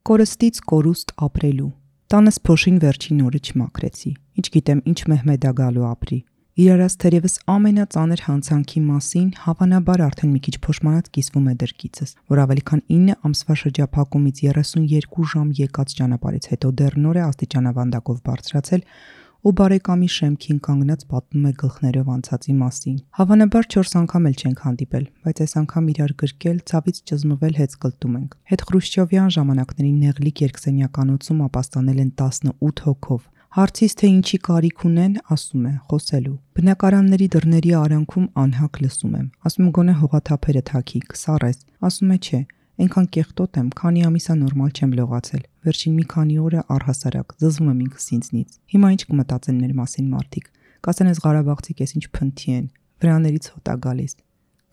Կորստից կորուստ ապրելու։ Տանս փոշին վերջին օրը չմաքրեցի։ Ինչ գիտեմ, ինչ Մեհմեդա գալու ապրի։ Իրարած թերևս ամենածանր հանցանքի մասին հավանաբար արդեն մի քիչ փոշմանած կիսվում է դրկիցս, որ ավելի քան 9 ամսվա շրջափակումից 32 ժամ եկած ճանապարհից հետո դեռ նոր է աստիճանավանդակով բարձրացել ու բարեկամի շեմքին կանգնած պատմում է գլխներով անցածի մասին։ Հավանաբար 4 անգամ էլ չենք հանդիպել, բայց այս անգամ իրար գրկել, ցավից ճզմվել հետզկլտում ենք։ Հետ Խրուշչովյան ժամանակների նեղլիկ երկսենյականոցում ապաստանել են 18 հոգով։ Հարցից թե ինչի կարիք ունեն, ասում է, խոսելու։ Բնակարանների դռների արանքում անհակ լսում եմ։ Ասում եմ գոնե հողաթափերը թաքի, կսառես։ Ասում է չէ, այնքան կեղտոտ եմ, քանի ամիսա նորմալ չեմ լողացել։ Վերջին մի քանի օրը առհասարակ զզվում եմ ինքս ինձնից։ Հիմա ինչ կմտածեն մեր մասին մարդիկ։ Կասեն այս Ղարաբաղցիք էս ինչ փնթի են, վրաներից հոտ է գալիս։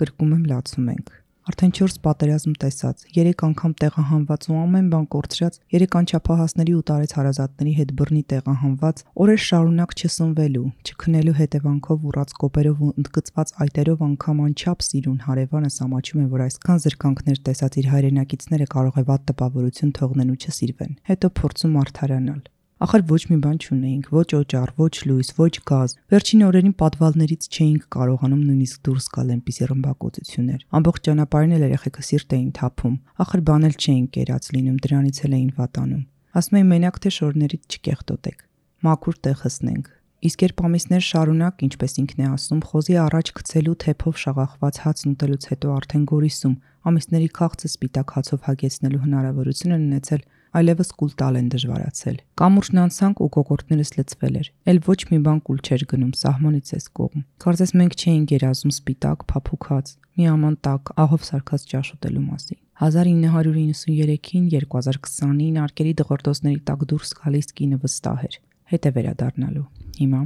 Կրկում եմ, լացում ենք։ Արդեն 4 պատերազմ տեսած, 3 անգամ տեղահանված ու ամեն բան կորցրած, 3 անչափահասների ու տարեց հարազատների հետ բռնի տեղահանված, օրեր շարունակ չսնվելու, չքնելու հետևանքով ուռած կոպերով ու ընդգծված այտերով անգամ անչափ սիրուն հարևանս ամաչում է, որ այսքան զրկանքներ տեսած իր հայրենակիցները կարող է վատ տպավորություն թողնեն ու չսիրվեն։ Հետո փորձում արդարանալ։ Ախր ոչ մի բան չունեինք, ոչ օճառ, ոչ լույս, ոչ գազ։ Վերջին օրերին պատվալներից չէինք կարողանում նույնիսկ դուրս գալ այնպիսի ռմբակոծություններ։ Ամբողջ ճանապարհին էլ երեխեքը սիրտ էին թափում։ Ախր բան էլ չէին կերած լինում, դրանից էլ էին վատանում։ Ասում էին մենակ թե շորներից չկեղտոտեք, մաքուր տեղ հսնենք։ Իսկ երբ ամիսներ շարունակ, ինչպես ինքն է ասում, խոզի առաջ գցելու թեփով շաղախված հացն ուտելուց հետո արդեն գորիսում, ամիսների քաղցը սպիտակ հացով հագեցնելու հնարավորություն են ունեցել, այլևս կուլ տալ են դժվարացել։ Կամուրջն անցանք ու կոկորտներս լցվել էր։ Էլ ոչ մի բան կուլ չէր գնում, սահմանից էս կողմ։ Կարծես մենք չէինք երազում սպիտակ, փափուկած, մի աման տակ, ահով սարքած ճաշ ուտելու մասին։ 1993-ին, 2020-ին արկերի դղրդոցների տակ դուրս գալիս կինը վստահ էր։ Հետ է վերադառնալու։ Հիմա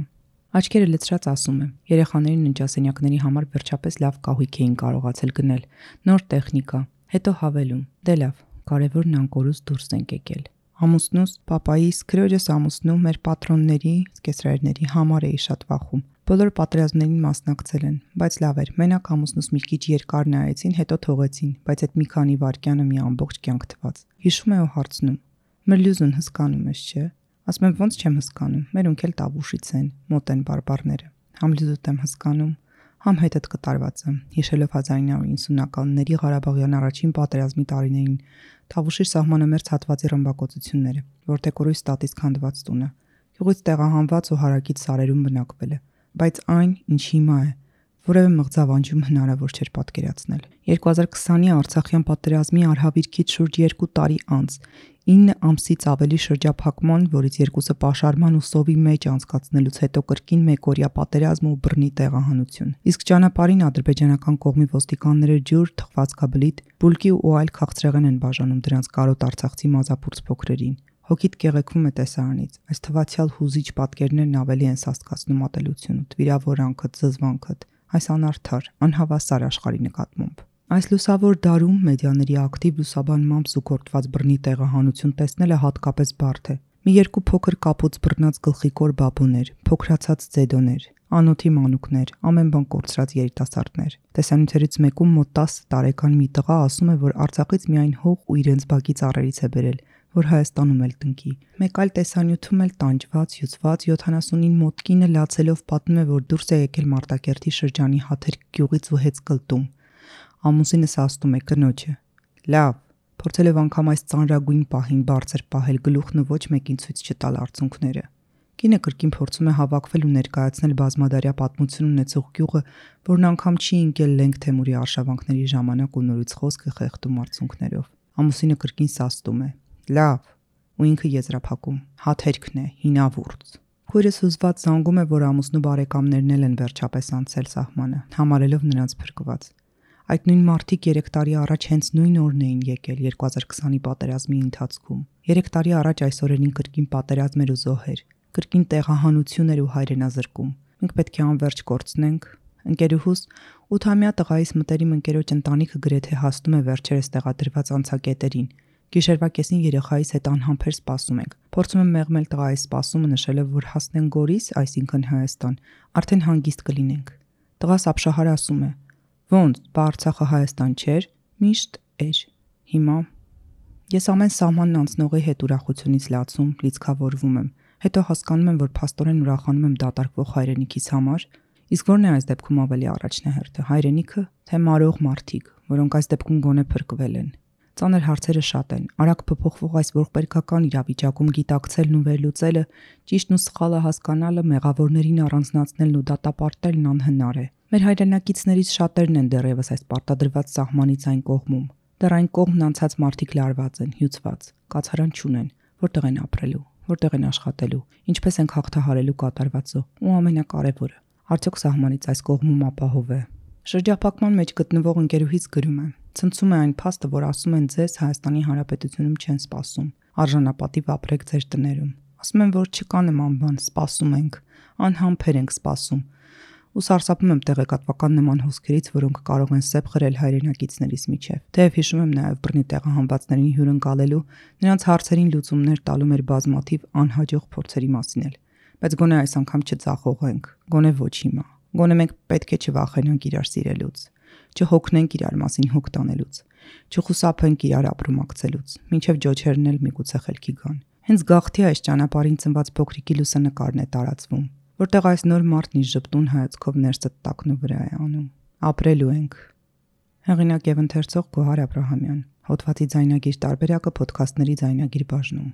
աչքերը լցրած ասում եմ, երեխաներին ննջասենյակների համար վերջապես լավ կահույք էին կարողացել գնել, նոր տեխնիկա, հետո հավելում, դե լավ, կարևորն անկորուս դուրս ենք եկել։ Ամուսնուս, պապայիս, քրոջս ամուսնու, մեր պատրոնների, կեսրայրների համար էի շատ վախում։ Բոլոր պատերազմներին մասնակցել են, բայց լավ էր, մենակ ամուսնուս մի քիչ երկար նայեցին, հետո թողեցին, բայց այդ մի քանի վայրկյանը մի ամբողջ կյանք թվաց։ Հիշում է ու հարցնում. Մրլյուզուն հսկանում ես, չէ՞։ Ասում եմ ոնց չեմ հսկանում, մերոնք էլ Տավուշից են, մոտ են բարբառները։ Համ լյուզուտ եմ հսկանում, համ հետդ կտարված եմ, հիշելով 1990-ականների Ղարաբաղյան առաջին պատերազմի տարիներին, Տավուշի սահմանամերձ հատվածի ռմբակոծությունները, որտեղ կորույս տատից քանդված տունը, գյուղից տեղահանված ու հարակից սարերում բնակվել է, բայց այն, ինչ հիմա է, որևէ մղձավանջում հնարավոր չէր պատկերացնել։ 2020-ի Արցախյան պատերազմի արհավիրքից շուրջ 2 տարի անց 9 ամսից ավելի շրջափակման, որից 2-ը պաշարման ու սովի մեջ անցկացնելուց հետո կրկին մեկօրյա պատերազմ ու բռնի տեղահանություն։ Իսկ ճանապարհին ադրբեջանական կողմի ոստիկանները ջուր, թխվածքաբլիթ, բուլկի ու այլ քաղցրեղեն են բաժանում դրանց կարոտ արցախցի մազապուրց փոքրերին։ Հոգիդ կեղեքում է տեսարանից, այս թվացյալ հուզիչ պատկերներն ավելի են սաստկացնում ատելությունդ, վիրավորանքդ, զզվանքդ, այս անարդար, անհավասար աշխարհի նկատմամբ։ Այս լուսավոր դարում մեդիաների ակտիվ լուսաբանմամբ զուգորդված բռնի տեղահանություն տեսնելը հատկապես բարդ է։ Մի երկու փոքր կապուց բռնած գլխիկոր բաբուներ, փոքրացած ձեդոներ, անոթի մանուկներ, ամեն բան կորցրած երիտասարդներ։ Տեսանյութերից մեկում մոտ 10 տարեկան մի տղա ասում է, որ Արցախից միայն հող ու իրենց բակի ծառերից է բերել, որ Հայաստանում էլ տնկի։ Մեկ այլ տեսանյութում էլ տանջված, հյուծված 70-ին մոտ կինը լացելով պատմում է, որ դուրս է եկել Մարտակերտի շրջանի Հաթեր գյուղից ու Հեծկլտում։ Ամուսինս ասում է կնոջը. լավ, փորձելով անգամ այս ծանրագույն պահին բարձր պահել գլուխն ու ոչ մեկին ցույց չտալ արցունքները։ Կինը կրկին փորձում է հավաքվել ու ներկայացնել բազմադարյա պատմություն ունեցող գյուղը, որն անգամ չի ընկել Լենգ Թեմուրի արշավանքների ժամանակ ու նորից խոսքը խեղդում արցունքներով։ Ամուսինը կրկին սաստում է. լավ, ու ինքը եզրափակում. հաթերքն է, հինավուրց։ Քույրս հուզված զանգում է, որ ամուսնու բարեկամներն էլ են վերջապես անցել սահմանը, համարելով նրանց փրկված։ Այդ նույն մարդիկ 3 տարի առաջ հենց նույն օրն էին եկել 2020-ի պատերազմի ընթացքում։ 3 տարի առաջ այս օրերին կրկին պատերազմ էր ու զոհեր, կրկին տեղահանություն էր ու հայրենազրկում։ Մենք պետք է անverջ կորցնենք։ Ընկերուհուս 8-ամյա տղայիս մտերիմ ընկերոջ ընտանիքը գրեթե հասնում է վերջերս տեղադրված անցակետերին։ Գիշերվա կեսին երեխայիս հետ անհամբեր սպասում ենք։ Փորձում եմ մեղմել տղայի սպասումը, նշելով, որ հասնենք Գորիս, այսինքն Հայաստան, արդեն հանգիստ կլինենք։ Տղաս ապշահար ասում է. ոնց, բա Արցախը Հայաստան չէր, միշտ էր։ Հիմա Ես ամեն սահմանն անցնողի հետ ուրախությունից լացում, լիցքավորվում եմ, հետո հասկանում եմ, որ փաստորեն ուրախանում եմ դատարկվող հայրենիքիս համար, իսկ ո՞րն է այս դեպքում ավելի առաջնահերթը, հայրենիքը, թե մարող մարդիկ, որոնք այս դեպքում գոնե փրկվել են։ Ծանր հարցերը շատ են, արագ փոփոխվող այս ողբերգական իրավիճակում գիտակցելն ու վերլուծելը, ճիշտն ու սխալը հասկանալը, մեղավորներին առանձնացնելն ու դատապարտելն անհնար է։ Մեր հայրենակիցներից շատերն են դեռևս այս պարտադրված սահմանից այն կողմում։ Դեռ այն կողմն անցած մարդիկ լարված են, հյուծված, կացարան չունեն, որտեղ են ապրելու, որտեղ են աշխատելու, ինչպես են հաղթահարելու կատարվածը, ու ամենակարևորը, արդյոք սահմանից այս կողմում ապահով է։ Շրջափակման մեջ գտնվող ընկերուհից գրում է. ցնցում է այն փաստը, որ ասում են ձեզ Հայաստանի Հանրապետությունում չեն սպասում, արժանապատիվ ապրեք ձեր տներում։ Ասում են, որ չկա նման բան, սպասում ենք, անհամբեր ենք սպասում։ Ու սարսափում եմ տեղեկատվական նման հոսքերից, որոնք կարող են սեպ խրել հայրենակիցներիս միջև։ Թեև հիշում եմ նաև բռնի տեղահանվածներին հյուրընկալելու, նրանց հարցերին լուծումներ տալու մեր բազմաթիվ անհաջող փորձերի մասին էլ։ Բայց գոնե այս անգամ չձախողենք, գոնե ոչ հիմա։ Գոնե մենք պետք է չվախենանք իրար սիրելուց, չհոգնենք իրար մասին հոգ տանելուց, չխուսափենք իրար ապրումակցելուց, մինչև ջոջերն էլ միգուցե խելքի գան։ Հենց գաղթի այս ճանապարհին ծնված փոքրիկի լուսանկարն է տարածվում, որտեղ այս նոր մարդն իր ժպտուն հայացքով ներսը տակնու վրա է անում։ Ապրելու ենք։ Հեղինակ եւ ընթերցող Գոհար Աբրահամյան։ Հոդվածի ձայնագիր տարբերակը ոդքասթների ձայնագիր բաժնում։